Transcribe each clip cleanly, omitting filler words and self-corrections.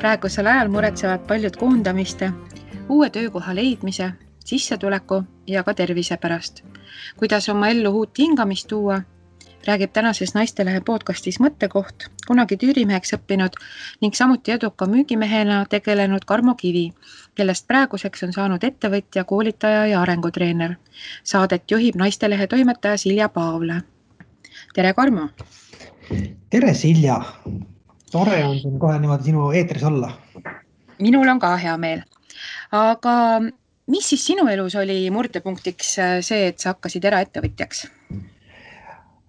Praegusel ajal muretsevad paljud koondamiste, uue töökoha leidmise, sissetuleku ja ka tervise pärast. Kuidas oma ellu uut hingamist tuua, räägib tänases Naistelehe podcastis Mõttekoht, kunagi tüürimeheks õppinud ning samuti eduka müügimehena tegelenud Karmo Kivi, kellest praeguseks on saanud ettevõtja, koolitaja ja arengutreener. Saadet juhib Naistelehe toimetaja Silja Paavle. Tere, Karmo! Tere, Silja! Tore on siin kohe niimoodi sinu eetris olla. Minul on ka hea meel. Aga mis siis sinu elus oli murdepunktiks see, et sa hakkasid eraettevõtjaks?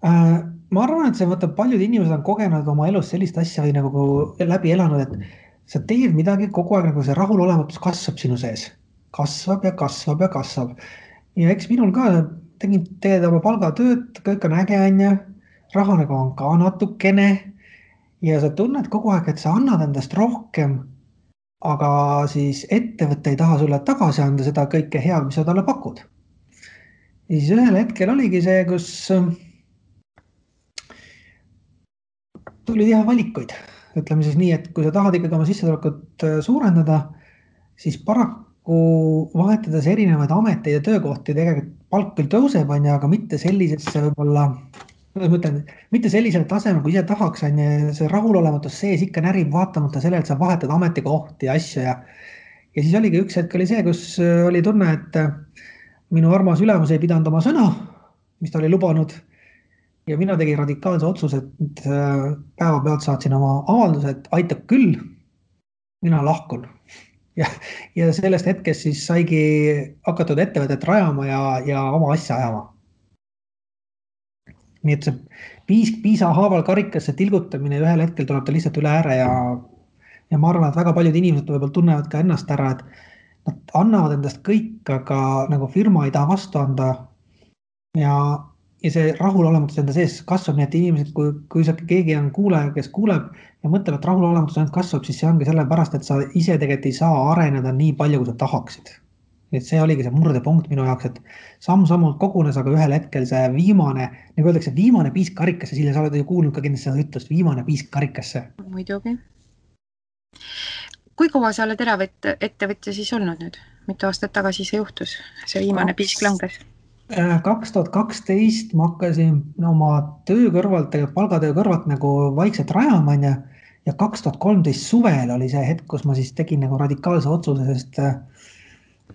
Ma arvan, et see paljud inimesed on kogenud oma elus sellist asja või nagu läbi elanud, et sa teed midagi kogu aeg, nagu see rahulolematus kasvab sinu sees. Kasvab ja kasvab ja kasvab. Ja eks minul ka tegid oma palgatööd, kõik on äge, raha nagu on ka natukene ja sa tunned kogu aeg, et sa annad endast rohkem, aga siis ettevõte ei taha sulle tagasi anda seda kõike head, mis sa talle pakud. Ja siis ühel hetkel oligi see, kus tuli teha valikuid. Ütleme siis nii, et kui sa tahad ikkagi oma sissetulekut suurendada, siis paraku vahetades erinevaid ameteid ja töökohti tegelikult palk küll tõuseb, aga mitte sellisesse võib-olla, mitte sellisele tasemel, kui ise tahaks, see rahulolematus sees ikka närib vaatamata sellele, et sa vahetad ametikohti ja asju. Ja siis oligi üks hetk oli see, kus oli tunne, et minu armas ülemus ei pidanud oma sõna, mis ta oli lubanud. Ja mina tegin radikaalse otsuse, et päevapealt saatsin oma avalduse, et aitab küll, mina lahkun. Ja sellest hetkest siis saigi hakatud ettevõtet rajama ja oma asja ajama. Nii et see piisa haaval karikasse tilgutamine ühel hetkel tuleb ta lihtsalt üle ääre ja ma arvan, et väga paljud inimesed võib-olla tunnevad ka ennast ära, et nad annavad endast kõik, aga nagu firma ei taha vastu anda ja see rahulolematus enda sees kasvab, nii et inimesed, kui keegi on kuulaja, kes kuuleb ja mõtleb, et rahulolematus ainult kasvab, siis see ongi sellepärast, et sa ise tegelikult ei saa areneda nii palju, kui sa tahaksid. Et see oligi see murdepunkt minu jaoks, et samm-sammult kogunes, aga ühel hetkel see viimane, nagu öeldakse, viimane piisk karikasse, Silja, sa oled ju kuulnud ka kindlasti seda ütlust, viimane piisk karikasse. Muidugi. Kui kaua sa oled eraettevõtja siis olnud nüüd? Mitu aastat tagasi see juhtus? See viimane piisk langes? 2012 ma hakkasin oma töö kõrvalt, palgatöö kõrvalt nagu vaikselt rajama ja 2013 suvel oli see hetk, kus ma siis tegin nagu radikaalse otsuse, sest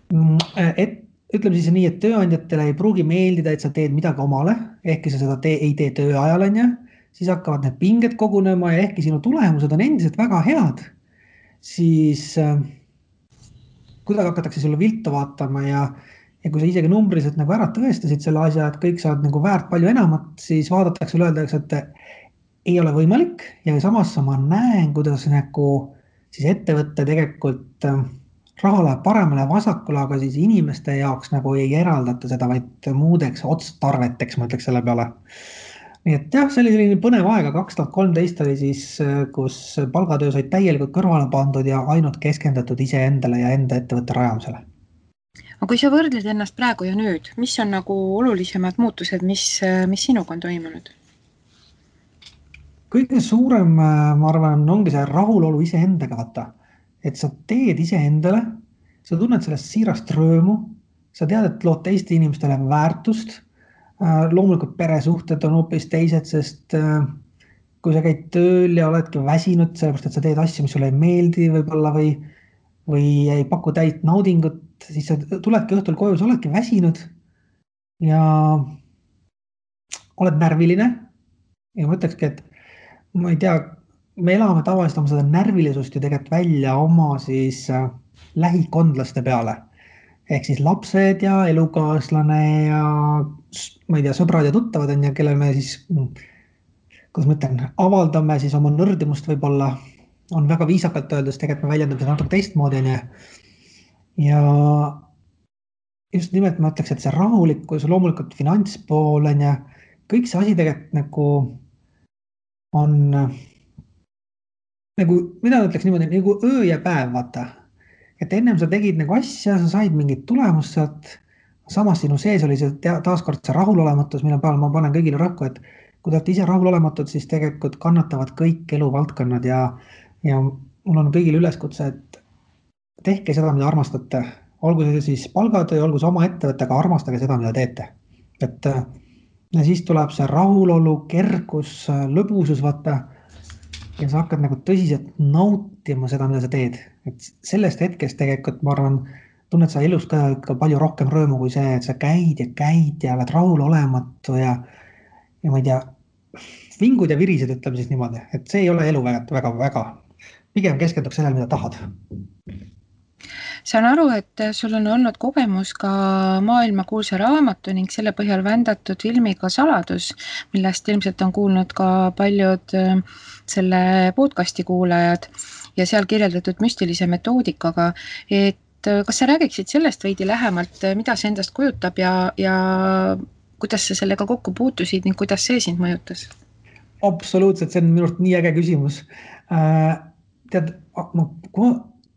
ütleme siis nii, et tööandjatele ei pruugi meeldida, et sa teed midagi omale, ehkki sa seda ei tee töö ajal, siis hakkavad need pinged kogunema ja ehkki sinu tulemused on endiselt väga head, siis kuidagi hakatakse sulle viltu vaatama ja kui sa isegi numbriliselt nagu ära tõestasid selle asja, et kõik saad nagu väärt palju enamat, siis vaadatakse üle öeldakse, et ei ole võimalik ja samas ma näen, kuidas nagu siis ettevõtte tegelikult raha läheb paremale ja vasakule, aga siis inimeste jaoks nagu ei eraldata seda, vaid muudeks otstarveteks, ma ütleks selle peale. Nii et jah, see oli selline põnev aega, 2013 oli siis, kus palgatöö said täielikult kõrvale pandud ja ainult keskendatud iseendale ja enda ettevõtte rajamisele. Aga kui sa võrdled ennast praegu ja nüüd, mis on nagu olulisemad muutused, mis sinuga on toimunud? Kõige suurem, ma arvan, ongi see rahulolu iseendaga vaata. Et sa teed iseendale, sa tunned sellest siirast rõõmu, sa tead, et lood teiste inimestele väärtust, loomulikult peresuhted on hoopis teised, sest kui sa käid tööl ja oledki väsinud, sellepärast, et sa teed asju, mis sulle ei meeldi võib-olla või ei paku täit naudingut, siis sa tuledki õhtul koju, sa oledki väsinud ja oled närviline. Ja ma ütlekski, et ma ei tea, me elame tavaliselt oma seda närvilisust ju tegelikult välja oma siis lähikondlaste peale. Ehk siis lapsed ja elukaaslane ja ma ei tea, sõbrad ja tuttavad on ja kelle me siis, kuidas ma ütlen, avaldame siis oma nõrdimust võib-olla, on väga viisakalt öeldes, tegelikult me väljendame seda natuke teistmoodi. Ja just nimelt ma ütleks, et see rahulikkus, loomulikult finantspool ja kõik see asi tegelikult nagu on nagu, mida ütleks niimoodi, nagu öö ja päev, vaata. Et ennem sa tegid nagu asja, sa said mingit tulemust sealt, samas sinu sees oli see taaskord see rahulolematus, mille peal ma panen kõigile rõhku, et kui te olete ise rahulolematud, siis tegelikult kannatavad kõik eluvaldkonnad ja mul on kõigil üleskutse, et tehke seda, mida armastate. Olgu see siis palgatöö, olgu see oma ettevõte, aga armastage seda, mida teete. Et ja siis tuleb see rahulolu, kergus, lõbusus, vaata. Ja sa hakkad nagu tõsiselt nautima seda, mida sa teed. Et sellest hetkest tegelikult, ma arvan, tunned sa elus ka palju rohkem rõõmu kui see, et sa käid ja oled rahul olematu ja ma ei tea, vingud ja virised, ütleme siis niimoodi, et see ei ole elu väga. Pigem keskenduks sellele, mida tahad. Saan aru, et sul on olnud kogemus ka maailmakuulsa raamatu ning selle põhjal vändatud filmiga Saladus, millest ilmselt on kuulnud ka paljud selle podcasti kuulajad ja seal kirjeldatud müstilise metoodikaga, et kas sa räägiksid sellest veidi lähemalt, mida see endast kujutab ja kuidas sa sellega kokku puutusid ning kuidas see sind mõjutas? Absoluutselt, see on minu arust nii äge küsimus. Tead,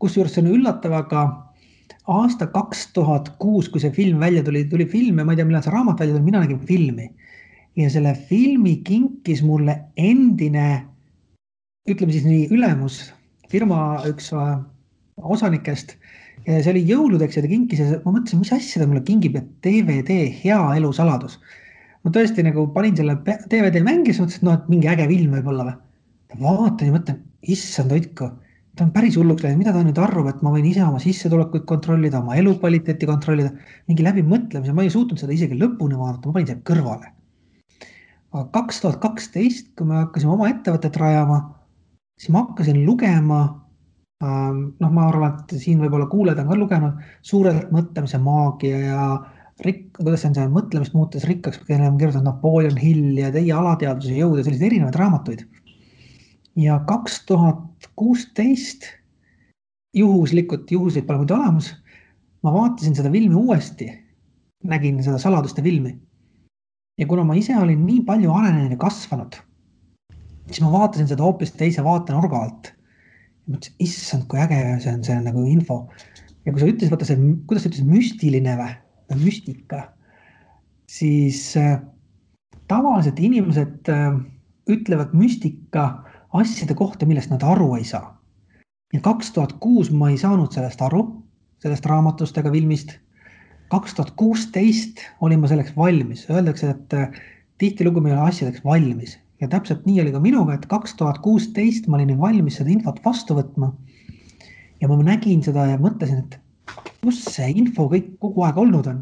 kusjuures see on üllatav, aga aasta 2006, kui see film välja tuli film ja ma ei tea, millal see raamat välja tuli, mina nägin filmi. Ja selle filmi kinkis mulle endine, ütleme siis nii, ülemus, firma üks osanikest. Ja see oli jõuludeks ja ta kinkis ja ma mõtlesin, mis asja ta mulle kingib, et DVD Hea elu saladus. Ma tõesti nagu panin selle DVD mängis, mõtlesin, et mingi äge film võib olla või. Vaatan ja mõtlen, issand hoidku, ta on päris hulluks läinud, mida ta nüüd arvab, et ma võin ise oma sissetulekuid kontrollida, oma elukvaliteeti kontrollida, mingi läbi mõtlemise, ma ei suutnud seda isegi lõpuni vaadata, ma panin selle kõrvale. Aga 2012, kui me hakkasime oma ettevõtet rajama, siis ma hakkasin lugema, ma arvan, et siin võib-olla kuuled on ka lugenud, Suurelt mõtlemise maagia ja kuidas on see mõtlemist muutes rikkaks, kelle on kirjutanud Napoleon Hill ja Teie alateadvuse jõud ja sellised erinevad raamatuid. Ja 2016 juhuslikult pole muidu olemas, ma vaatasin seda filmi uuesti, nägin seda Saladuste filmi. Ja kuna ma ise olin nii palju arenenud ja kasvanud, siis ma vaatasin seda hoopis teise vaatenurga alt. Ja mõtlesin, issand, kui äge see on nagu info. Ja kui sa ütlesid, vaata see, kuidas sa ütlesid, müstiline või müstika, siis tavaliselt inimesed ütlevad müstika asjade kohta, millest nad aru ei saa. Ja 2006 ma ei saanud sellest aru, sellest raamatust ega filmist. 2016 olin ma selleks valmis. Öeldakse, et tihtilugu me ei ole asjadeks valmis. Ja täpselt nii oli ka minuga, et 2016 ma olin valmis seda infot vastu võtma. Ja ma nägin seda ja mõtlesin, et kus see info kõik kogu aeg olnud on.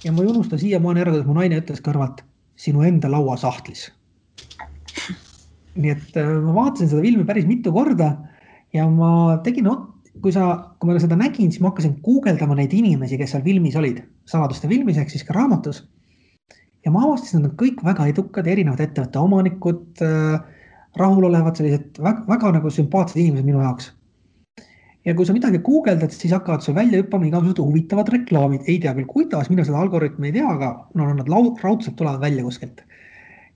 Ja ma ei unusta siiamaani ära, kuidas mu naine ütles kõrvalt, sinu enda laua sahtlis. Nii et ma vaatasin seda filmi päris mitu korda ja ma tegin, kui ma seda nägin, siis ma hakkasin guugeldama neid inimesi, kes seal filmis olid, Saladuste filmis ehk siis ka raamatus. Ja ma avastasin, et nad kõik väga edukad, erinevad ettevõtte omanikud, rahulolevad, sellised väga nagu sümpaatsed inimesed minu jaoks. Ja kui sa midagi guugeldad, siis hakkavad sul välja hüppama igasugused huvitavad reklaamid. Ei tea küll kuidas, mina seda algoritmi ei tea, aga nad raudselt tulevad välja kuskilt.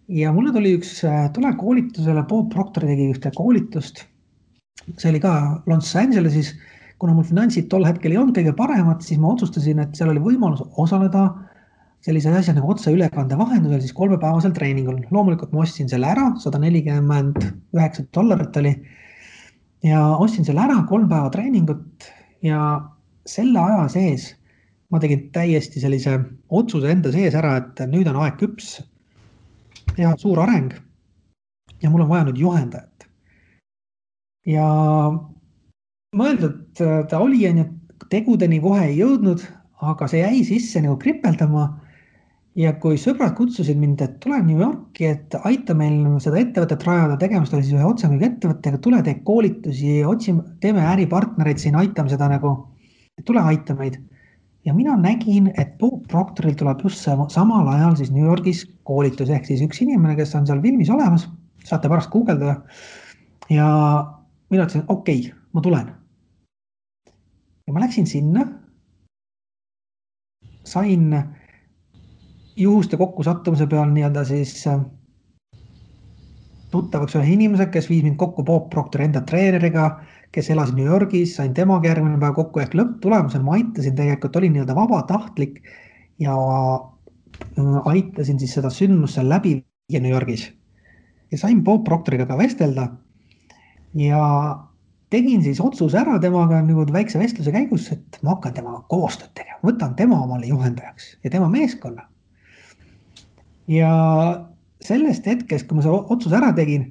Ja mulle tuli üks tulekoolitusele, Bob Proctor tegi ühte koolitust. See oli ka Los Angelesis, kuna mul finantsid tol hetkel ei olnud kõige paremad, siis ma otsustasin, et seal oli võimalus osaleda sellise asja nagu otse ülekande vahendusel, siis 3-päevasel treeningul. Loomulikult ma ostsin selle ära, $149 oli. Ja ostsin selle ära 3 päeva treeningut ja selle aja sees ma tegin täiesti sellise otsuse enda sees ära, et nüüd on aeg küps teha suur areng ja mul on vaja nüüd juhendajat. Ja mõeldud ta oli, tegudeni kohe ei jõudnud, aga see jäi sisse nagu kripeldama. Ja kui sõbrad kutsusid mind, et tule New Yorki, et aita meil seda ettevõtet rajada, tegemist oli siis ühe otsemüügi ettevõttega, tule tee koolitusi, teeme äripartnereid siin, aitame seda nagu, tule aita meid. Ja mina nägin, et Bob Proctoril tuleb just samal ajal siis New Yorgis koolitus, ehk siis üks inimene, kes on seal filmis olemas, saate pärast guugeldada. Ja mina ütlesin, okei, ma tulen. Ja ma läksin sinna, sain juhuste kokkusattumise peal nii-öelda siis tuttavaks ühe inimese, kes viis mind kokku Bob Proctori enda treeneriga, kes elas New Yorgis, sain temaga järgmine päev kokku ehk lõpptulemusel ma aitasin tegelikult, olin nii-öelda vabatahtlik ja aitasin siis seda sündmusse läbi viia New Yorgis. Ja sain Bob Proctoriga ka vestelda ja tegin siis otsuse ära temaga nagu väikse vestluse käigus, et ma hakkan temaga koostööd tegema, võtan tema omale juhendajaks ja tema meeskonna. Ja sellest hetkest, kui ma selle otsuse ära tegin,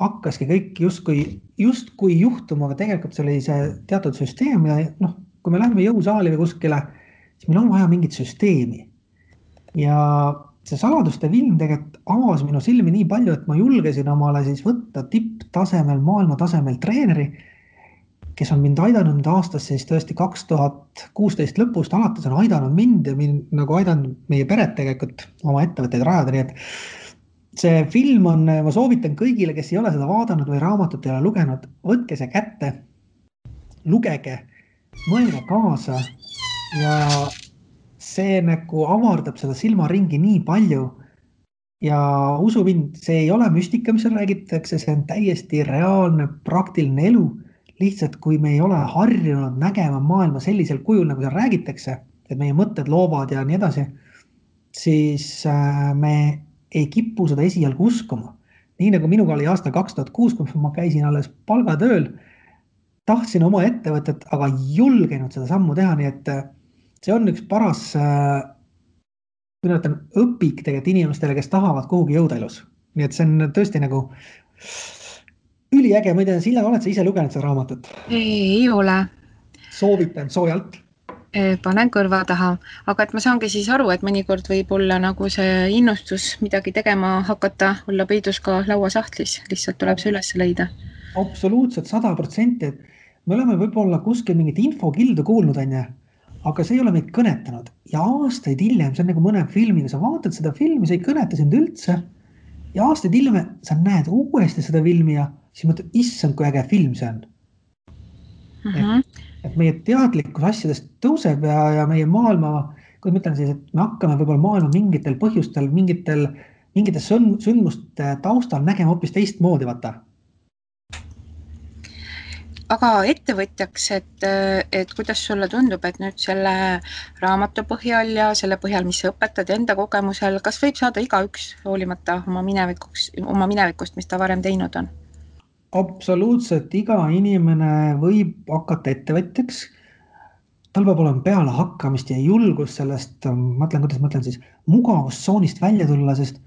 hakkaski kõik justkui juhtuma, aga tegelikult see oli see teatud süsteem ja kui me läheme jõusaali või kuskile, siis meil on vaja mingit süsteemi. Ja see saladuste film tegelikult avas minu silmi nii palju, et ma julgesin omale siis võtta tipptasemel, maailma tasemel treeneri, kes on mind aidanud nüüd aastas siis tõesti 2016 lõpust alates on aidanud mind ja mind nagu aidanud meie peret tegelikult oma ettevõtteid rajada, nii et see film on, ma soovitan kõigile, kes ei ole seda vaadanud või raamatut ei ole lugenud, võtke see kätte, lugege, mõelge kaasa ja see nagu avardab seda silmaringi nii palju ja usu mind, see ei ole müstika, mis seal räägitakse, see on täiesti reaalne, praktiline elu. Lihtsalt kui me ei ole harjunud nägema maailma sellisel kujul, nagu seal räägitakse, et meie mõtted loovad ja nii edasi, siis me ei kipu seda esialgu uskuma. Nii nagu minuga oli aastal 2006, kui ma käisin alles palgatööl, tahtsin oma ettevõtet, aga ei julgenud seda sammu teha, nii et see on üks paras õpik tegelikult inimestele, kes tahavad kuhugi jõuda elus. Nii et see on tõesti nagu üliäge, ma ei tea, Silla, oled sa ise lugenud seda raamatut? Ei ole. Soovitan soojalt. Panen kõrva taha, aga et ma saangi siis aru, et mõnikord võib olla nagu see innustus midagi tegema hakata, olla peidus ka lauasahtlis, lihtsalt tuleb see üles leida. Absoluutselt 100%, et me oleme võib-olla kuskil mingit infokildu kuulnud, aga see ei ole meid kõnetanud ja aastaid hiljem, see on nagu mõne filmiga, sa vaatad seda filmi, see ei kõneta sind üldse ja aastaid hiljem sa näed uuesti seda filmi ja siis mõtled, issand, kui äge film see on. Et meie teadlikkus asjadest tõuseb ja meie maailma, kui ma ütlen siis, et me hakkame võib-olla maailma mingitel põhjustel, mingite sündmuste taustal nägema hoopis teistmoodi, vaata. Aga ettevõtjaks, et kuidas sulle tundub, et nüüd selle raamatu põhjal ja selle põhjal, mis sa õpetad enda kogemusel, kas võib saada igaüks hoolimata oma minevikust, mis ta varem teinud on? Absoluutselt, iga inimene võib hakata ettevõtjaks. Tal peab olema peale hakkamist ja julgus sellest, kuidas ma ütlen siis, mugavustsoonist välja tulla, sest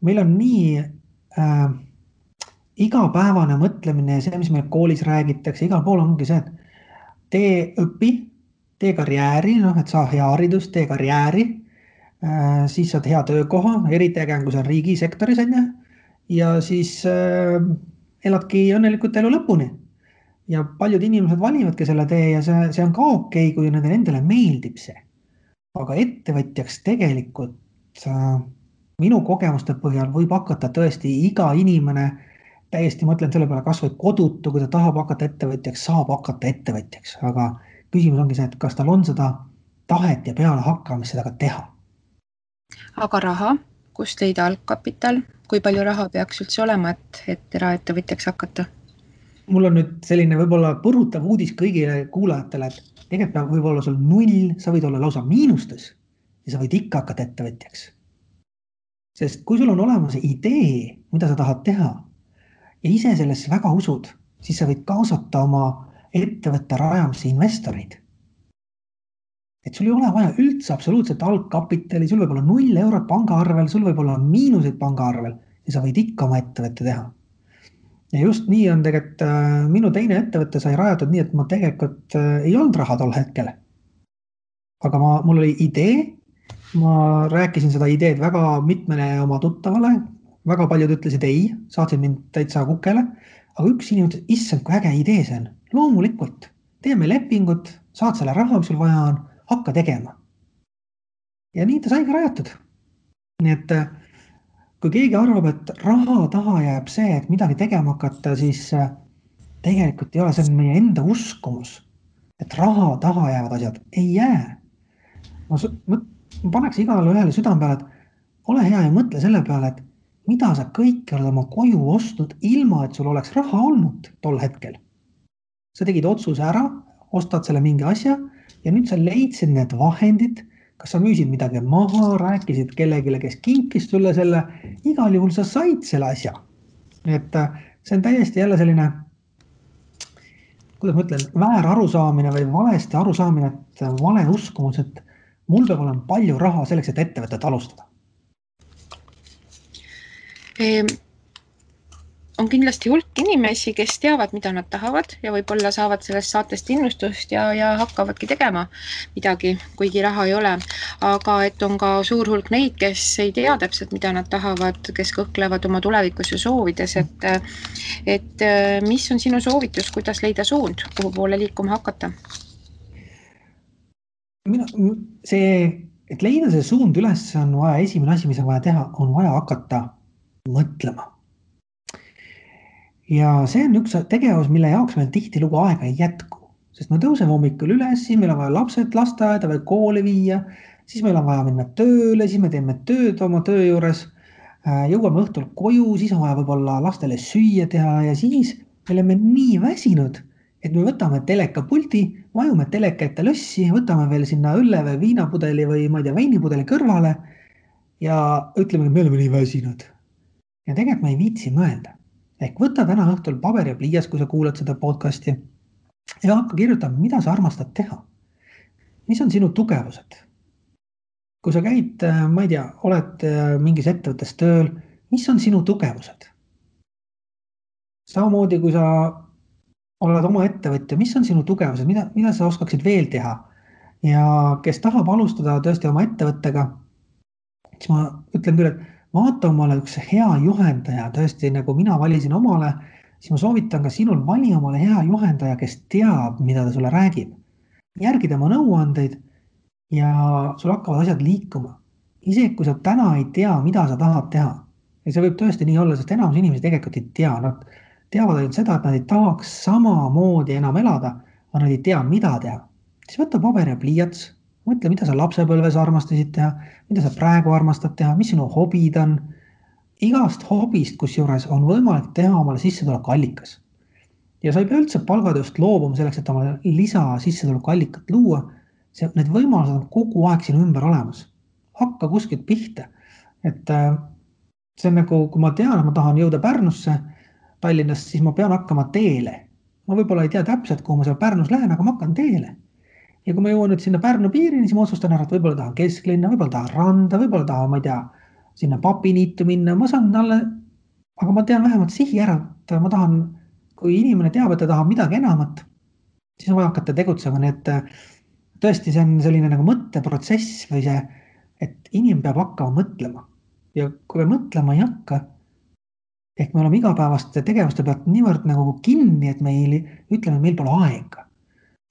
meil on nii igapäevane mõtlemine ja see, mis meil koolis räägitakse, igal pool ongi see, et tee õpi, tee karjääri, et saa hea haridus, tee karjääri, siis saad hea töökoha, eriti äge, kui see on riigisektoris, ja siis eladki õnnelikult elu lõpuni. Ja paljud inimesed valivadki selle tee ja see on ka okei, kui nendele endale meeldib see. Aga ettevõtjaks tegelikult minu kogemuste põhjal võib hakata tõesti iga inimene, täiesti mõtlen selle peale kas või kodutu, kui ta tahab hakata ettevõtjaks, saab hakata ettevõtjaks. Aga küsimus ongi see, et kas tal on seda tahet ja peale hakkamist seda ka teha. Aga raha, kust leida algkapital? Kui palju raha peaks üldse olema, et eraettevõtjaks hakata? Mul on nüüd selline võib-olla põrutav uudis kõigile kuulajatele, et tegelikult võib olla sul 0, sa võid olla lausa miinustes ja sa võid ikka hakata ettevõtjaks. Sest kui sul on olemas idee, mida sa tahad teha ja ise sellesse väga usud, siis sa võid kaasata oma ettevõtte rajamisse investoreid. Et sul ei ole vaja üldse absoluutselt algkapitali, sul võib olla 0 eurot pangaarvel, sul võib olla miinuseid pangaarvel ja sa võid ikka oma ettevõtte teha. Ja just nii on tegelikult minu teine ettevõtte sai rajatud nii, et ma tegelikult ei olnud raha tol hetkel. Aga mul oli idee, ma rääkisin seda ideed väga mitmele oma tuttavale, väga paljud ütlesid ei, saatsid mind täitsa kukele, aga üks inimene ütles, issand, kui äge idee see on, loomulikult, teeme lepingut, saad selle raha, mis sul vaja on, hakka tegema. Ja nii ta saigi rajatud. Nii et kui keegi arvab, et raha taha jääb see, et midagi tegema hakata, siis tegelikult ei ole, see on meie enda uskumus, et raha taha jäävad asjad ei jää. Ma paneks igale ühele südame peale, et ole hea ja mõtle selle peale, et mida sa kõik oled oma koju ostnud ilma, et sul oleks raha olnud tol hetkel. Sa tegid otsuse ära, ostad selle mingi asja ja nüüd sa leidsid need vahendid, kas sa müüsid midagi maha, rääkisid kellegile, kes kinkis sulle selle, igal juhul sa said selle asja. Et see on täiesti jälle selline kuidas ma ütlen, väär arusaamine või valesti arusaamine, et vale uskumus, et mul peab olema palju raha selleks, et ettevõtet alustada. On kindlasti hulk inimesi, kes teavad, mida nad tahavad ja võib-olla saavad sellest saatest innustust ja hakkavadki tegema midagi, kuigi raha ei ole. Aga et on ka suur hulk neid, kes ei tea täpselt, mida nad tahavad, kes kõhklevad oma tulevikus ja soovides, et mis on sinu soovitus, kuidas leida suund, kuhu poole liikuma hakata? Et leida see suund üles on vaja, esimene asi, mis on vaja teha, on vaja hakata mõtlema. Ja see on üks tegevus, mille jaoks meil tihtilugu aega ei jätku, sest me tõuseme hommikul üles, siis meil on vaja lapsed lasteaeda või kooli viia, siis meil on vaja minna tööle, siis me teeme tööd oma töö juures, jõuame õhtul koju, siis on vaja võib-olla lastele süüa teha ja siis me oleme nii väsinud, et me võtame telekapuldi, vajume teleka ette lössi, võtame veel sinna õlle või viinapudeli või ma ei tea, veinipudeli kõrvale ja ütleme, et me oleme nii väsinud. Ja tegelikult me ei viitsi mõelda. Ehk võta täna õhtul paber ja pliias, kui sa kuulad seda podcasti ja hakka kirjutama, mida sa armastad teha. Mis on sinu tugevused? Kui sa käid, ma ei tea, oled mingis ettevõttes tööl, mis on sinu tugevused? Samamoodi, kui sa oled oma ettevõtja, mis on sinu tugevused, mida sa oskaksid veel teha? Ja kes tahab alustada tõesti oma ettevõttega, siis ma ütlen küll, et vaata omale üks hea juhendaja, tõesti nagu mina valisin omale, siis ma soovitan ka sinul vali omale hea juhendaja, kes teab, mida ta sulle räägib. Järgi tema nõuandeid ja sul hakkavad asjad liikuma. Isegi kui sa täna ei tea, mida sa tahad teha. Ja see võib tõesti nii olla, sest enamus inimesi tegelikult ei tea. Nad teavad ainult seda, et nad ei tahaks samamoodi enam elada, aga nad ei tea, mida teha. Siis võtta paber ja pliiats. Mõtle, mida sa lapsepõlves armastasid teha, mida sa praegu armastad teha, mis sinu hobid on. Igast hobist, kus juures on võimalik teha omale sissetulekuallikas. Ja sa ei pea üldse palgatööst loobuma selleks, et omale lisa sissetulekuallikat luua. Need võimalused on kogu aeg sinu ümber olemas. Hakka kuskilt pihta. Et see on nagu, kui ma tean, et ma tahan jõuda Pärnusse Tallinnast, siis ma pean hakkama teele. Ma võib-olla ei tea täpselt, kuhu ma seal Pärnus lähen, aga ma hakkan teele. Ja kui ma jõuan nüüd sinna Pärnu piirini, siis ma otsustan ära, et võib-olla tahan kesklinna, võib-olla tahan randa, võib-olla tahan, ma ei tea, sinna papiniitu minna. Ma saan talle, aga ma tean vähemalt sihi ära, et ma tahan, kui inimene teab, et ta tahab midagi enamat, siis on vaja hakata tegutsema. Nii et tõesti, see on selline nagu mõtteprotsess või see, et inimene peab hakkama mõtlema. Ja kui me mõtlema ei hakka, ehk me oleme igapäevaste tegevuste pealt niivõrd nagu kinni, et meil ütleme, meil pole aega.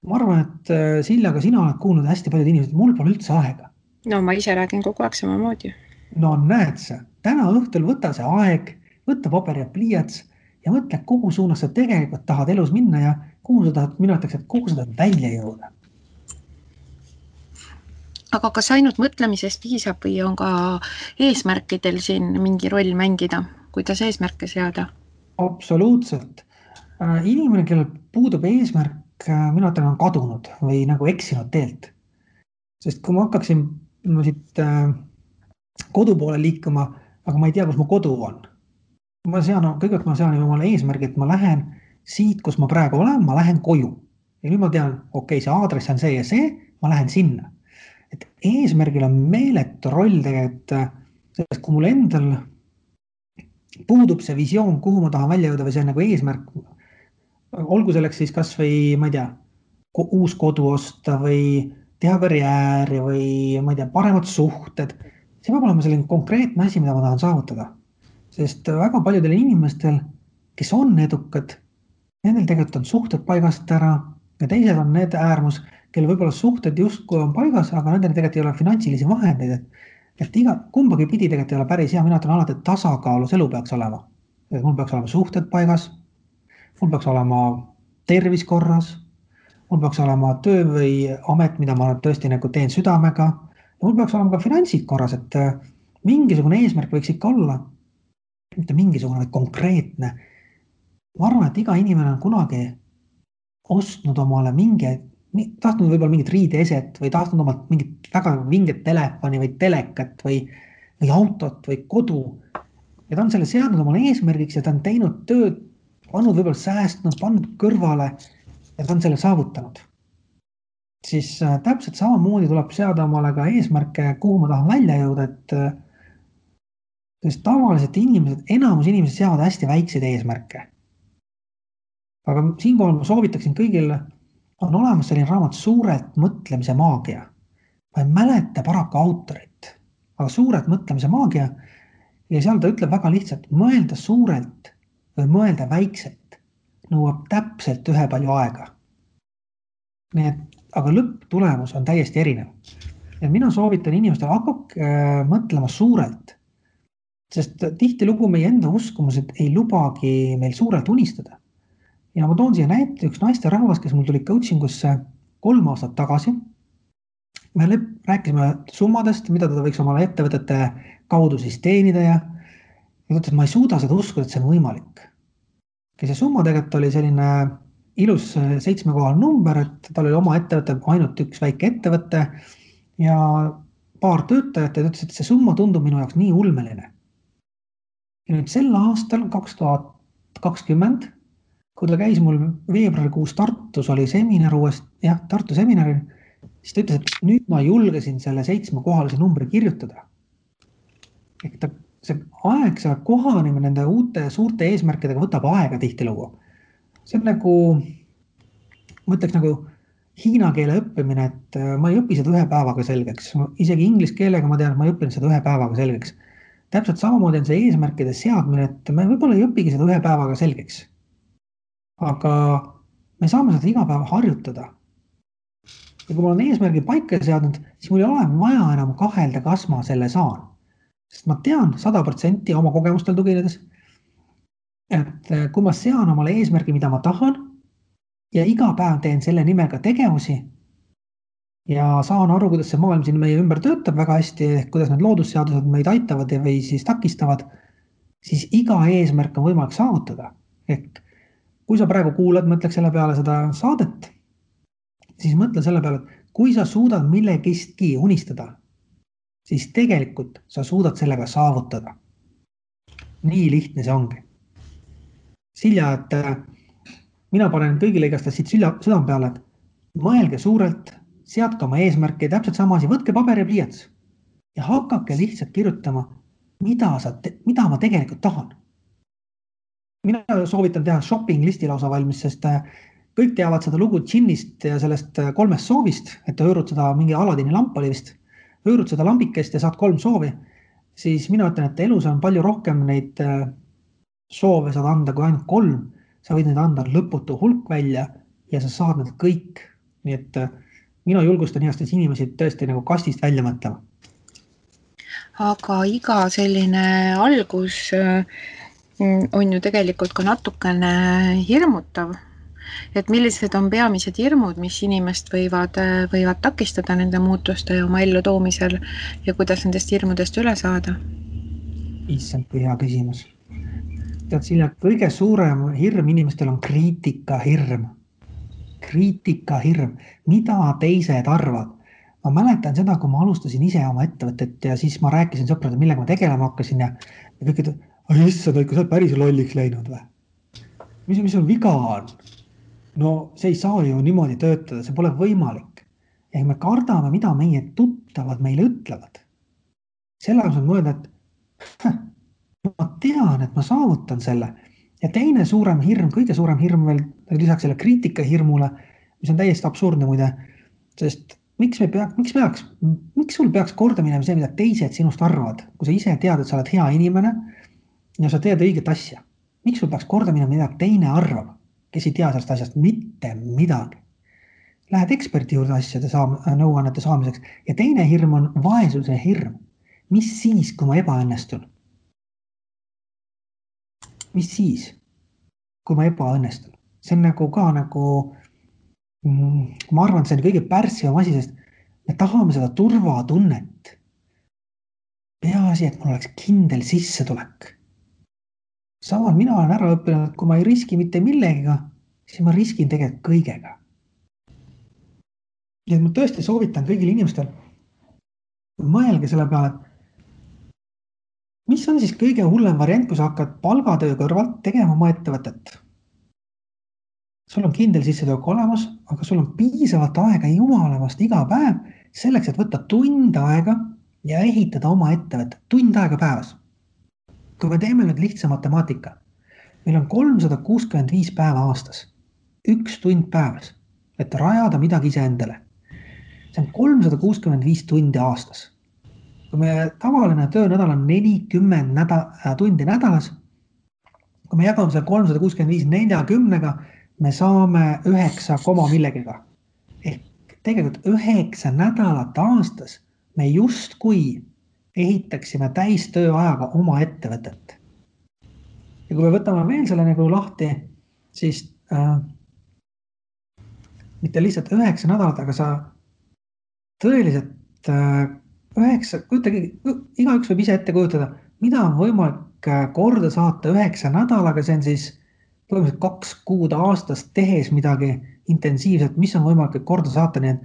Ma arvan, et Silja, ka sina oled kuulnud hästi paljud inimesed, et mul pole üldse aega. No ma ise räägin kogu aeg samamoodi. No näed sa, täna õhtul võta see aeg, võtta paber ja pliiats ja mõtle, kuhu suunas sa tegelikult tahad elus minna ja kuhu sa tahad, mina ütleks, et kuhu sa tahad välja jõuda. Aga kas ainult mõtlemisest piisab või on ka eesmärkidel siin mingi roll mängida, kuidas eesmärke seada? Absoluutselt. Inimene, kellel puudub eesmärk, mina ütlen, on kadunud või nagu eksinud teelt. Sest kui ma hakkaksin siit kodu poole liikuma, aga ma ei tea, kus mu kodu on. Kõigepealt ma sean omale eesmärgi, et ma lähen siit, kus ma praegu olen, ma lähen koju. Ja nüüd ma tean, okei, see aadress on see ja see, ma lähen sinna. Et eesmärgil on meeletu roll tegelikult, sest kui mul endal puudub see visioon, kuhu ma tahan välja jõuda või see on nagu eesmärk, olgu selleks siis kas või, ma ei tea, uus kodu osta või teha karjääri või, ma ei tea, paremad suhted. See peab olema selline konkreetne asi, mida ma tahan saavutada. Sest väga paljudel inimestel, kes on edukad, nendel tegelikult on suhted paigast ära ja teised on need äärmus, kelle võib-olla suhted justkui on paigas, aga nendel tegelikult ei ole finantsilisi vahendeid. Et kumbagi pidi tegelikult ei ole päris hea, mina ütlen alati, et tasakaalus elu peaks olema. Et mul peaks olema suhted paigas, mul peaks olema tervis korras, mul peaks olema töö või amet, mida ma tõesti nagu teen südamega, ja mul peaks olema ka finantsid korras, et mingisugune eesmärk võiks ikka olla, mitte mingisugune, vaid konkreetne. Ma arvan, et iga inimene on kunagi ostnud omale tahtnud võib-olla mingit riideeset või tahtnud omalt mingit väga vinget telefoni või telekat või autot või kodu. Ja ta on selle seadnud omale eesmärgiks ja ta on teinud tööd, pannud võib-olla säästnud, pannud kõrvale ja ta on selle saavutanud, siis täpselt samamoodi tuleb seada omale ka eesmärke, kuhu ma tahan välja jõuda, sest tavaliselt enamus inimesed seavad hästi väikseid eesmärke. Aga siinkohal ma soovitaksin kõigile, on olemas selline raamat Suurelt mõtlemise maagia. Ma ei mäleta paraku autorit, aga Suurelt mõtlemise maagia ja seal ta ütleb väga lihtsalt, mõelda suurelt või mõelda väikselt nõuab täpselt ühepalju aega. Nii et, aga lõpptulemus on täiesti erinev. Ja mina soovitan inimestele hakake mõtlema suurelt, sest tihtilugu meie enda uskumused ei lubagi meil suurelt unistada. Ja ma toon siia näite üks naisterahvas, kes mul tuli coachingusse 3 aastat tagasi. Me rääkisime summadest, mida ta võiks omale ettevõtete kaudu siis teenida ja ta ütles, et ma ei suuda seda uskuda, et see on võimalik. Ja see summa tegelikult oli selline ilus 7-kohaline number, et tal oli oma ettevõte, ainult üks väike ettevõte ja paar töötajat ja ta ütles, et see summa tundub minu jaoks nii ulmeline. Ja nüüd sel aastal 2020, kui ta käis mul veebruarikuus Tartus, oli seminar Tartu seminaril, siis ta ütles, et nüüd ma julgesin selle 7-kohalise numbri kirjutada. Ehk see aeg, see kohanimine nende uute suurte eesmärkidega võtab aega tihtilugu. See on nagu, ma ütleks nagu hiina keele õppimine, et ma ei õpi seda 1 päevaga selgeks. Isegi inglise keelega ma tean, et ma ei õppinud seda 1 päevaga selgeks. Täpselt samamoodi on see eesmärkide seadmine, et me võib-olla ei õpigi seda 1 päevaga selgeks. Aga me saame seda iga päev harjutada. Ja kui ma olen eesmärgi paika seadnud, siis mul ei ole vaja enam kahelda, kas ma selle saan. Sest ma tean 100% oma kogemustel tuginedes, et kui ma sean omale eesmärgi, mida ma tahan ja iga päev teen selle nimega tegevusi ja saan aru, kuidas see maailm siin meie ümber töötab väga hästi, kuidas need loodusseadused meid aitavad või siis takistavad, siis iga eesmärk on võimalik saavutada. Ehk kui sa praegu kuulad, mõtleks selle peale seda saadet, siis mõtle selle peale, et kui sa suudad millegistki unistada, siis tegelikult sa suudad sellega saavutada. Nii lihtne see ongi. Silja, et mina panen kõigile igast siit südame peale, et mõelge suurelt, seadke oma eesmärki, täpselt sama asi, võtke paber ja pliiats ja hakake lihtsalt kirjutama, mida ma tegelikult tahan. Mina soovitan teha shopping listi lausa valmis, sest kõik teavad seda lugu džinnist ja sellest 3 soovist, et hõõrud seda mingi Aladini lamp oli vist, hõõrud seda lambikest ja saad 3 soovi, siis mina ütlen, et elus on palju rohkem neid soove saad anda kui ainult 3, sa võid neid anda lõputu hulk välja ja sa saad need kõik. Nii et mina julgustan heastes inimesi tõesti nagu kastist välja mõtlema. Aga iga selline algus on ju tegelikult ka natukene hirmutav, et millised on peamised hirmud, mis inimest võivad takistada nende muutuste oma ellu toomisel ja kuidas nendest hirmudest üle saada? Issand, kui hea küsimus. Tead, Silja, kõige suurem hirm inimestel on kriitikahirm. Kriitikahirm, mida teised arvad. Ma mäletan seda, kui ma alustasin ise oma ettevõtet ja siis ma rääkisin sõpradele, millega ma tegelema hakkasin ja kõik ütlevad, issand, kui sa oled päris lolliks läinud või? Mis on viga on? No see ei saa ju niimoodi töötada, see pole võimalik. Ehk me kardame, mida meie tuttavad meile ütlevad. Selle on mõelda, et ma tean, et ma saavutan selle. Ja teine suurem hirm, kõige suurem hirm veel lisaks selle kriitikahirmule, mis on täiesti absurdne muide, sest miks sul peaks korda minema see, mida teised sinust arvavad, kui sa ise tead, et sa oled hea inimene ja sa teed õiget asja. Miks sul peaks korda minema, mida teine arvab, kes ei tea sellest asjast mitte midagi? Lähed eksperti juurde asjade nõuannete saamiseks ja teine hirm on vaesuse hirm. Mis siis, kui ma ebaõnnestun? Mis siis, kui ma ebaõnnestun? See on nagu ka ma arvan, et see on kõige pärssivam asi, sest me tahame seda turvatunnet. Peaasi, et mul oleks kindel sissetulek. Samal mina olen ära õppinud, et kui ma ei riski mitte millegiga, siis ma riskin tegelikult kõigega. Ja ma tõesti soovitan kõigil inimestel mõelge selle peale, mis on siis kõige hullem variant, kui sa hakkad palgatöö kõrvalt tegema oma ettevõtet? sul on kindel sissetulek olemas, aga sul on piisavalt aega jumalamast iga päev selleks, et võtta tund aega ja ehitada oma ettevõtet, tund aega päevas. Kui me teeme nüüd lihtsa matemaatika, meil on 365 päeva aastas, 1 tund päevas, et rajada midagi iseendale. See on 365 tundi aastas. Kui me tavaline töönädal on 40 tundi nädalas, kui me jagame selle 365 40-ga, me saame 9 millegiga. Ehk tegelikult 9 nädalat aastas me justkui ehitaksime täistööajaga oma ettevõtet. Ja kui me võtame veel selle nagu lahti, siis mitte lihtsalt 9 nädalat, aga sa tõeliselt 9, igaüks võib ise ette kujutada, mida on võimalik korda saata 9 nädalaga, see on siis põhimõtteliselt 2 kuud aastas tehes midagi intensiivselt, mis on võimalik korda saata, nii et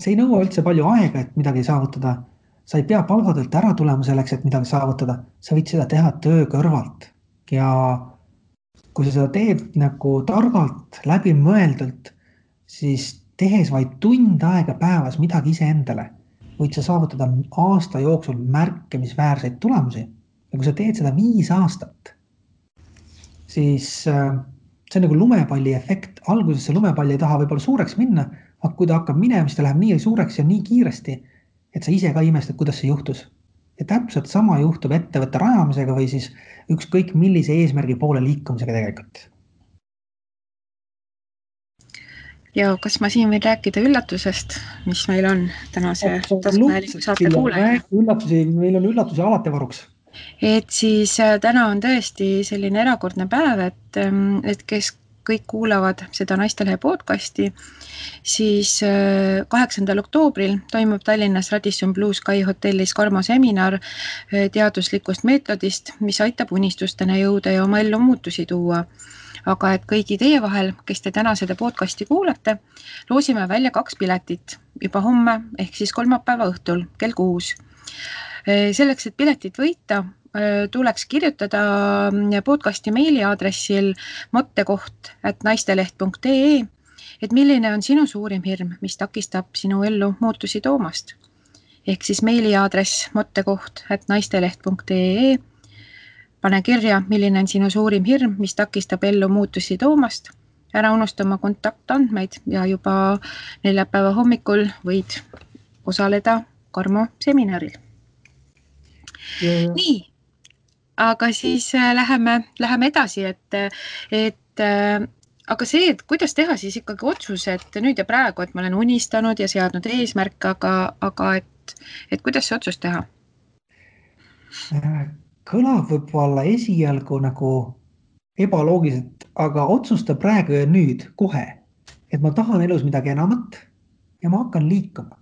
see ei nõua üldse palju aega, et midagi saavutada. Sa ei pea palgatöölt ära tulema selleks, et midagi saavutada. Sa võid seda teha töö kõrvalt. Ja kui sa seda teed nagu targalt, läbimõeldult, siis tehes vaid tund aega päevas midagi iseendale, võid sa saavutada aasta jooksul märkimisväärseid tulemusi. Ja kui sa teed seda 5 aastat, siis see on nagu lumepalli efekt. Alguses see lumepall ei taha võib-olla suureks minna, aga kui ta hakkab minema, siis ta läheb nii suureks ja nii kiiresti, et sa ise ka imestad, kuidas see juhtus. Ja täpselt sama juhtub ettevõtte rajamisega või siis ükskõik millise eesmärgi poole liikumisega tegelikult. Ja kas ma siin võin rääkida üllatusest, mis meil on tänase taskuhäälingu saate kuulaja? Meil on üllatusi alati varuks. Et siis täna on tõesti selline erakordne päev, et kes kõik kuulavad seda Naistelehe podcasti, siis 8. oktoobril toimub Tallinnas Radisson Blue Sky hotellis Karmo seminar teaduslikust meetodist, mis aitab unistustena jõuda ja oma ellu muutusi tuua. Aga et kõigi teie vahel, kes te täna seda podcasti kuulate, loosime välja 2 piletit juba homme ehk siis kolmapäeva õhtul kell 6. Selleks, et piletit võita, tuleks kirjutada podcasti meiliaadressil mottekoht@naisteleht.ee, et milline on sinu suurim hirm, mis takistab sinu ellu muutusi toomast. Ehk siis meiliaadress mottekoht@naisteleht.ee. Pane kirja, milline on sinu suurim hirm, mis takistab ellu muutusi toomast. Ära unusta oma kontaktandmeid ja juba neljapäeva hommikul võid osaleda Karmo seminaril. Nii, aga siis läheme edasi, aga see, et kuidas teha siis ikkagi otsus, et nüüd ja praegu, et ma olen unistanud ja seadnud eesmärk, aga et kuidas see otsus teha? Kõlab võib-olla esialgu nagu ebaloogiliselt, aga otsusta praegu ja nüüd kohe, et ma tahan elus midagi enamat ja ma hakkan liikuma.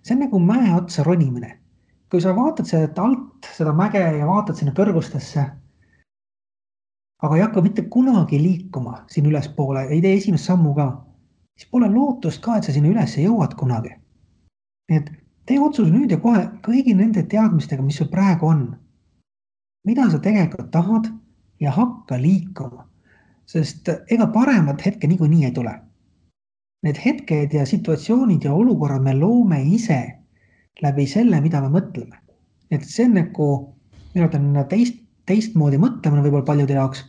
See on nagu mäe otsa ronimine. Kui sa vaatad seda alt, seda mäge ja vaatad sinna kõrgustesse, aga ei hakka mitte kunagi liikuma siin ülespoole, ei tee esimest sammu ka, siis pole lootust ka, et sa sinna üles jõuad kunagi. Nii et tee otsus nüüd ja kohe kõigi nende teadmistega, mis sul praegu on. Mida sa tegelikult tahad ja hakka liikuma, sest ega paremat hetke niikuinii ei tule. Need hetked ja situatsioonid ja olukorrad me loome ise läbi selle, mida me mõtleme. Et see on nagu, minu on teistmoodi mõtlemine võib-olla paljude jaoks,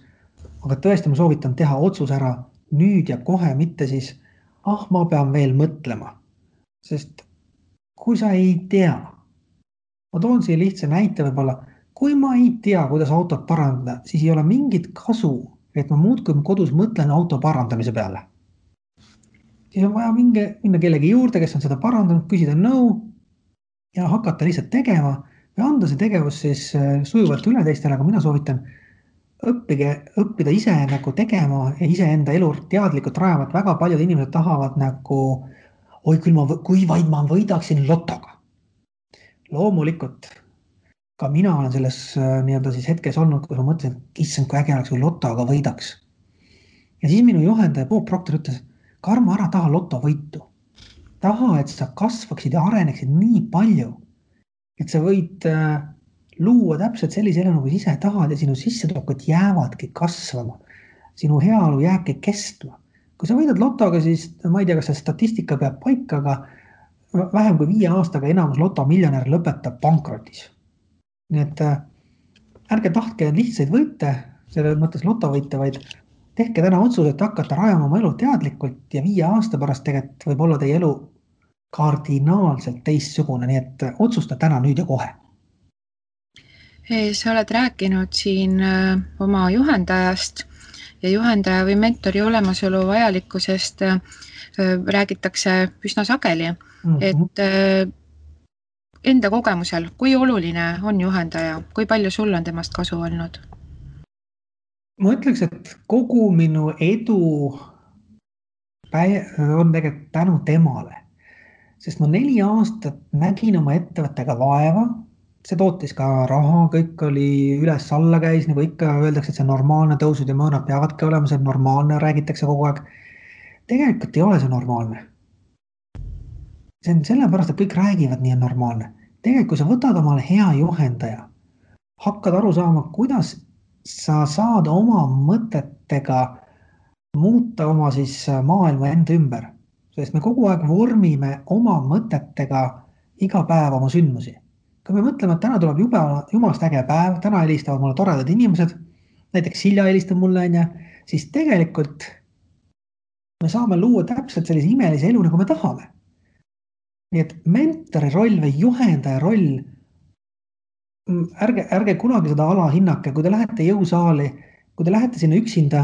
aga tõesti ma soovitan teha otsus ära nüüd ja kohe, mitte siis, ma pean veel mõtlema. Sest kui sa ei tea, ma toon siia lihtsa näite võib-olla, kui ma ei tea, kuidas autot parandada, siis ei ole mingit kasu, et ma muudkui kodus mõtlen auto parandamise peale. Siis on vaja minna kellegi juurde, kes on seda parandanud, küsida nõu ja hakata lihtsalt tegema ja anda see tegevus siis sujuvalt üle teistele, aga mina soovitan õppida ise nagu tegema ja ise enda elu teadlikult rajama, et väga paljud inimesed tahavad nagu, kui vaid ma võidaksin lotoga. Loomulikult, ka mina olen selles nii-öelda siis hetkes olnud, kus ma mõtlesin, issand, kui äge oleks, kui lotoga võidaks. Ja siis minu juhendaja Bob Proctor ütles, Karmo, ära taha lotovõitu. Taha, et sa kasvaksid ja areneksid nii palju, et sa võid luua täpselt sellise elu, nagu ise tahad ja sinu sissetulekud jäävadki kasvama. sinu heaolu jääbki kestma. Kui sa võidad lotoga, siis ma ei tea, kas see statistika peab paika, aga vähem kui 5 aastaga enamus lotomiljonär lõpetab pankrotis. Nii et ärge tahtke lihtsaid võite, selle mõttes lotovõite, vaid tehke täna otsus, et hakata rajama oma elu teadlikult ja 5 aasta pärast tegelikult võib olla teie elu kardinaalselt teistsugune, nii et otsusta täna, nüüd ja kohe. Sa oled rääkinud siin oma juhendajast ja juhendaja või mentori olemasolu vajalikkusest räägitakse üsna sageli, et enda kogemusel, kui oluline on juhendaja, kui palju sul on temast kasu olnud? Ma ütleks, et kogu minu edu on tegelikult tänu temale, sest ma 4 aastat nägin oma ettevõttega vaeva, see tootis ka raha, kõik oli üles-alla käis, nagu ikka öeldakse, et see normaalne tõusud ja mõõnad peavadki olema, see normaalne, räägitakse kogu aeg. Tegelikult ei ole see normaalne. See on sellepärast, et kõik räägivad nii on normaalne. Tegelikult, kui sa võtad omale hea juhendaja, hakkad aru saama, kuidas sa saad oma mõtetega muuta oma siis maailma enda ümber. Sest me kogu aeg vormime oma mõtetega iga päev oma sündmusi. Kui me mõtleme, et täna tuleb jumalast äge päev, täna helistavad mulle toredad inimesed, näiteks Silja helistab mulle, siis tegelikult me saame luua täpselt sellise imelise elu, nagu me tahame. Nii et mentori roll või juhendaja roll, ärge kunagi seda alahinnake, kui te lähete jõusaali, kui te lähete sinna üksinda,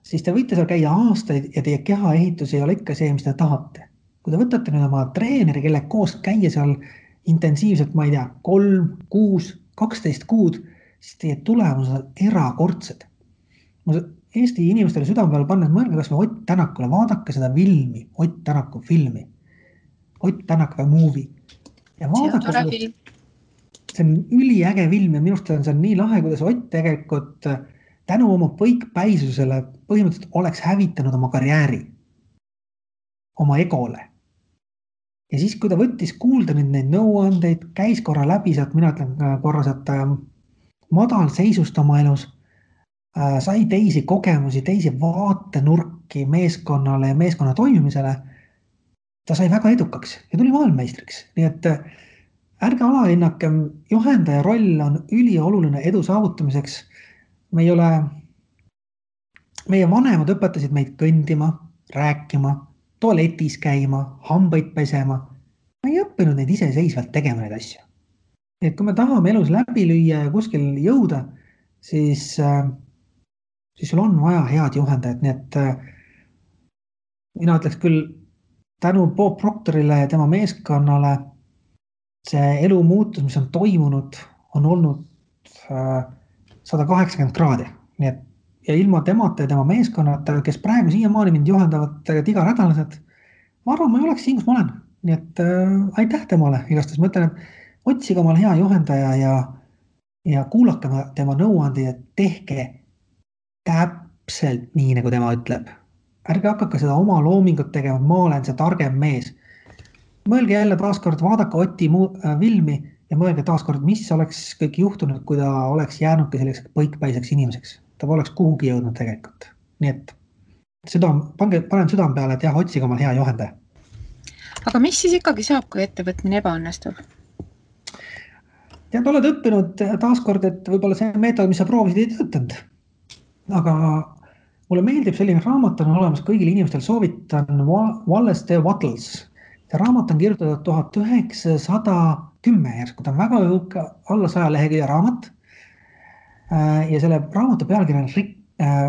siis te võite seal käia aastaid ja teie kehaehitus ei ole ikka see, mis te tahate. Kui te võtate nüüd oma treeneri, kelle koos käia seal intensiivselt, ma ei tea, 3, 6, 12 kuud, siis teie tulemused on erakordsed. Ma Eesti inimestele südame peale pannes mõelge kas või Ott Tänakule, vaadake seda filmi, Ott Tänaku filmi. Ott Tänak või movie. Ja vaadake seda, see on üliäge film ja minust on see nii lahe, kuidas Ott tegelikult tänu oma põikpäisusele põhimõtteliselt oleks hävitanud oma karjääri, oma egole. Ja siis, kui ta võttis kuulda neid nõuandeid, käis korra läbi sealt, mina ütlen korra sealt madal seisust oma elus, sai teisi kogemusi, teisi vaatenurki meeskonnale ja meeskonna toimimisele, ta sai väga edukaks ja tuli maailmameistriks. Nii et ärge alahinnake, juhendaja roll on ülioluline edu saavutamiseks. Meie vanemad õpetasid meid kõndima, rääkima, tualetis käima, hambaid pesema. Ma ei õppinud neid iseseisvalt tegema neid asju. Et kui me tahame elus läbi lüüa ja kuskil jõuda, siis sul on vaja head juhendajat. Nii et mina ütleks küll tänu Bob Proctorile ja tema meeskonnale see elu muutus, mis on toimunud, on olnud 180 kraadi. Nii et ja ilma temata ja tema meeskonnata, kes praegu siiamaani mind juhendavad iganädalaselt, ma arvan, ma ei oleks siin, kus ma olen. Nii et aitäh temale igastes. Ma ütlen, et otsige omale hea juhendaja ja kuulake tema nõuandi ja tehke täpselt nii, nagu tema ütleb. Ärge hakake seda oma loomingut tegema, ma olen see targem mees. Mõelge jälle taaskord, vaadake Oti filmi ja mõelge taaskord, mis oleks kõik juhtunud, kui ta oleks jäänudki selliseks põikpäiseks inimeseks. Ta oleks kuhugi jõudnud tegelikult. Nii et panen südame peale, et jah, otsige oma hea juhendaja. Aga mis siis ikkagi saab, kui ettevõtmine ebaõnnestub? Tead, oled õppinud taaskord, et võib-olla see meetod, mis sa proovisid, ei töötanud. Aga mulle meeldib selline raamat on olemas kõigil inimestel, soovitan Wallace D. Wattles. See raamat on kirjutatud 1910 järsku, ta on väga alla 100 lehekülje raamat. Ja selle raamatu pealkiri on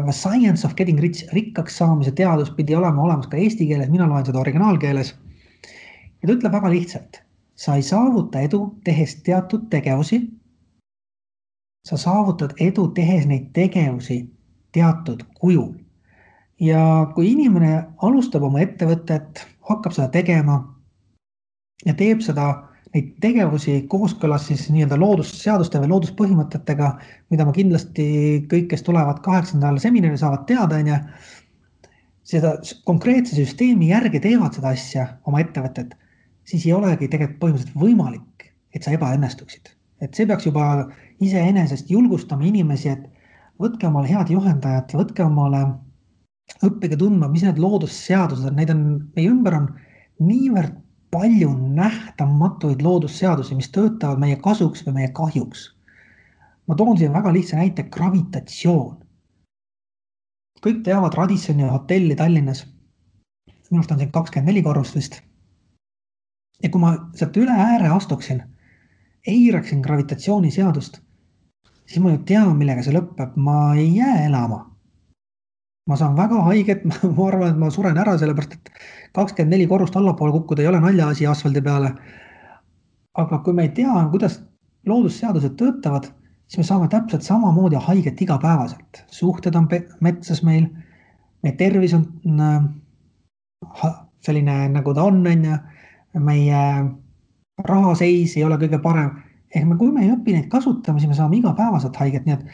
The Science of Getting Rich, rikkaks saamise teadus pidi olema olemas ka eesti keeles, mina loen seda originaalkeeles. Ja ta ütleb väga lihtsalt, sa ei saavuta edu tehes teatud tegevusi, sa saavutad edu tehes neid tegevusi teatud kujul. Ja kui inimene alustab oma ettevõtet, hakkab seda tegema ja teeb seda neid tegevusi kooskõlas siis nii-öelda loodusseaduste või looduspõhimõtetega, mida ma kindlasti kõik, kes tulevad 8. seminari saavad teada, seda konkreetse süsteemi järgi teevad seda asja oma ettevõtet, siis ei olegi tegelikult põhimõtteliselt võimalik, et sa ebaõnnestuksid. Et see peaks juba iseenesest julgustama inimesi, et võtke omale head juhendajad, võtke omale, õppige tundma, mis need loodusseadused on, neid on, meie ümber on niivõrd palju nähtamatuid loodusseadusi, mis töötavad meie kasuks või meie kahjuks. Ma toon siin väga lihtsa näite, gravitatsioon. Kõik teavad Radissoni hotelli Tallinnas. Minust on siin 24 korrust vist. Ja kui ma sealt üle ääre astuksin, eiraksin gravitatsiooniseadust, siis ma ju tean, millega see lõpeb. Ma ei jää elama. Ma saan väga haiget, ma arvan, et ma suren ära, sellepärast, et 24 korrust allapoole kukkuda ei ole naljaasi asfaldi peale. Aga kui me ei tea, kuidas loodusseadused töötavad, siis me saame täpselt samamoodi haiget igapäevaselt. Suhted on metsas meil, meie tervis on selline, nagu ta on, meie rahaseis ei ole kõige parem. Kui me ei õpi neid kasutama, siis me saame igapäevaselt haiget. Nii et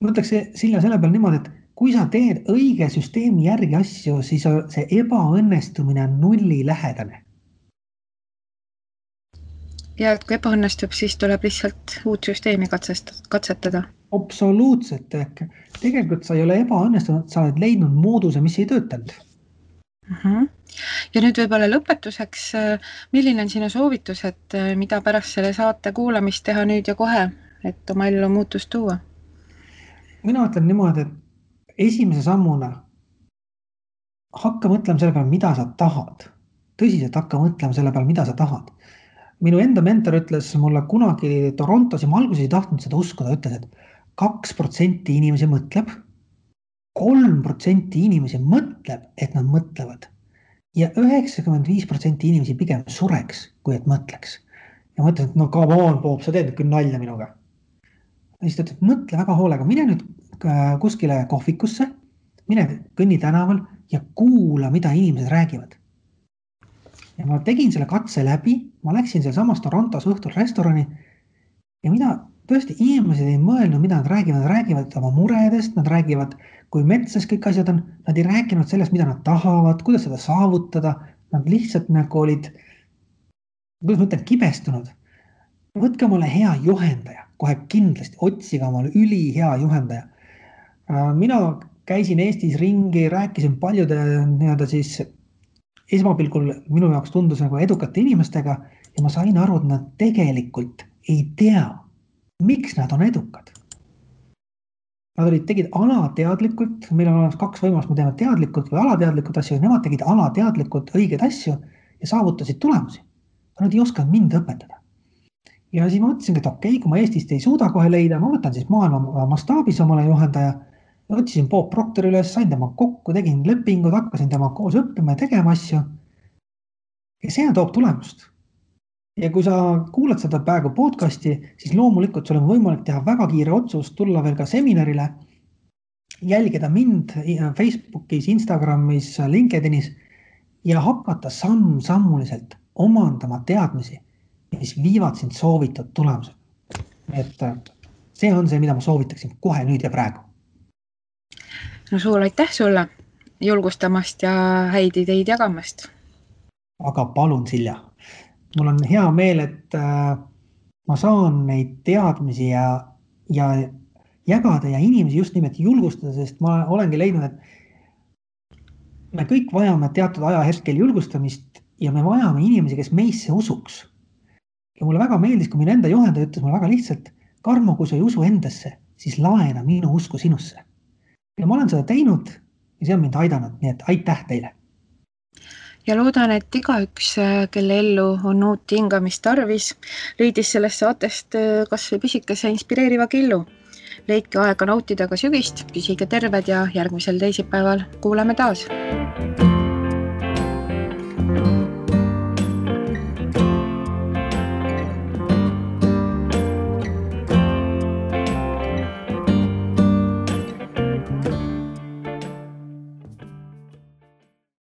ma ütleks Silja selle peale niimoodi, et kui sa teed õige süsteemi järgi asju, siis see ebaõnnestumine on nulli lähedane. Ja et kui ebaõnnestub, siis tuleb lihtsalt uut süsteemi katsetada. Absoluutselt. Tegelikult sa ei ole ebaõnnestunud, sa oled leidnud mooduse, mis ei töötanud. Ja nüüd võib-olla lõpetuseks, milline on sinu soovitus, et mida pärast selle saate kuulamist teha nüüd ja kohe, et oma ellu muutust tuua? Mina ütlen niimoodi, et esimese sammuna hakka mõtlema selle peale, mida sa tahad. Tõsiselt hakka mõtlema selle peale, mida sa tahad. Minu enda mentor ütles mulle kunagi Torontos ja ma alguses ei tahtnud seda uskuda, ütles, et 2% inimesi mõtleb, 3% inimesi mõtleb, et nad mõtlevad ja 95% inimesi pigem sureks, kui et mõtleks. Ja mõtlen, et no come on, Bob, sa teed küll nalja minuga. Ja siis ta ütles, et mõtle väga hoolega, mine nüüd kuskile kohvikusse, mine kõnni tänaval ja kuula, mida inimesed räägivad. Ja ma tegin selle katse läbi, ma läksin seal samas Torontos õhtul restorani ja mida tõesti inimesed ei mõelnud, mida nad räägivad oma muredest, nad räägivad, kui metsas kõik asjad on, nad ei rääkinud sellest, mida nad tahavad, kuidas seda saavutada, nad lihtsalt nagu olid, kuidas ma ütlen, kibestunud. Võtke omale hea juhendaja, kohe kindlasti, otsige omale üli hea juhendaja. Mina käisin Eestis ringi, rääkisin paljude siis esmapilgul minu jaoks tundus nagu edukate inimestega ja ma sain aru, et nad tegelikult ei tea, miks nad on edukad. Nad tegid alateadlikult, meil on olemas 2 võimalust, me teeme teadlikult või alateadlikult asju, nemad tegid alateadlikult õigeid asju ja saavutasid tulemusi. Aga nad ei osanud mind õpetada. Ja siis ma mõtlesin, et okei, kui ma Eestist ei suuda kohe leida, ma võtan siis maailma mastaabis omale juhendaja ja võtsin Bob Proctor üles, sain tema kokku, tegin lepingud, hakkasin tema koos õppima ja tegema asju. Ja see toob tulemust. Ja kui sa kuulad seda praegu podcasti, siis loomulikult sul on võimalik teha väga kiire otsus, tulla veel ka seminarile, jälgida mind Facebookis, Instagramis, LinkedInis ja hakata sammuliselt omandama teadmisi, mis viivad sind soovitud tulemused. Et see on see, mida ma soovitaksin kohe nüüd ja praegu. No suur aitäh sulle julgustamast ja häid ideid jagamast. Aga palun, Silja. Mul on hea meel, et ma saan neid teadmisi ja jagada ja inimesi just nimelt julgustada, sest ma olengi leidnud, et me kõik vajame teatud ajahetkel julgustamist ja me vajame inimesi, kes meisse usuks. Ja mulle väga meeldis, kui minu enda juhendaja ütles mulle väga lihtsalt, Karmo, kui sa ei usu endasse, siis laena minu usku sinusse. Ja ma olen seda teinud ja see on mind aidanud, nii et aitäh teile. Ja loodan, et igaüks, kelle ellu on uut hingamist tarvis, leidis sellest saatest kas või pisikese inspireeriva killu. Leidke aega nautida ka sügist, püsige terved ja järgmisel teisipäeval kuuleme taas.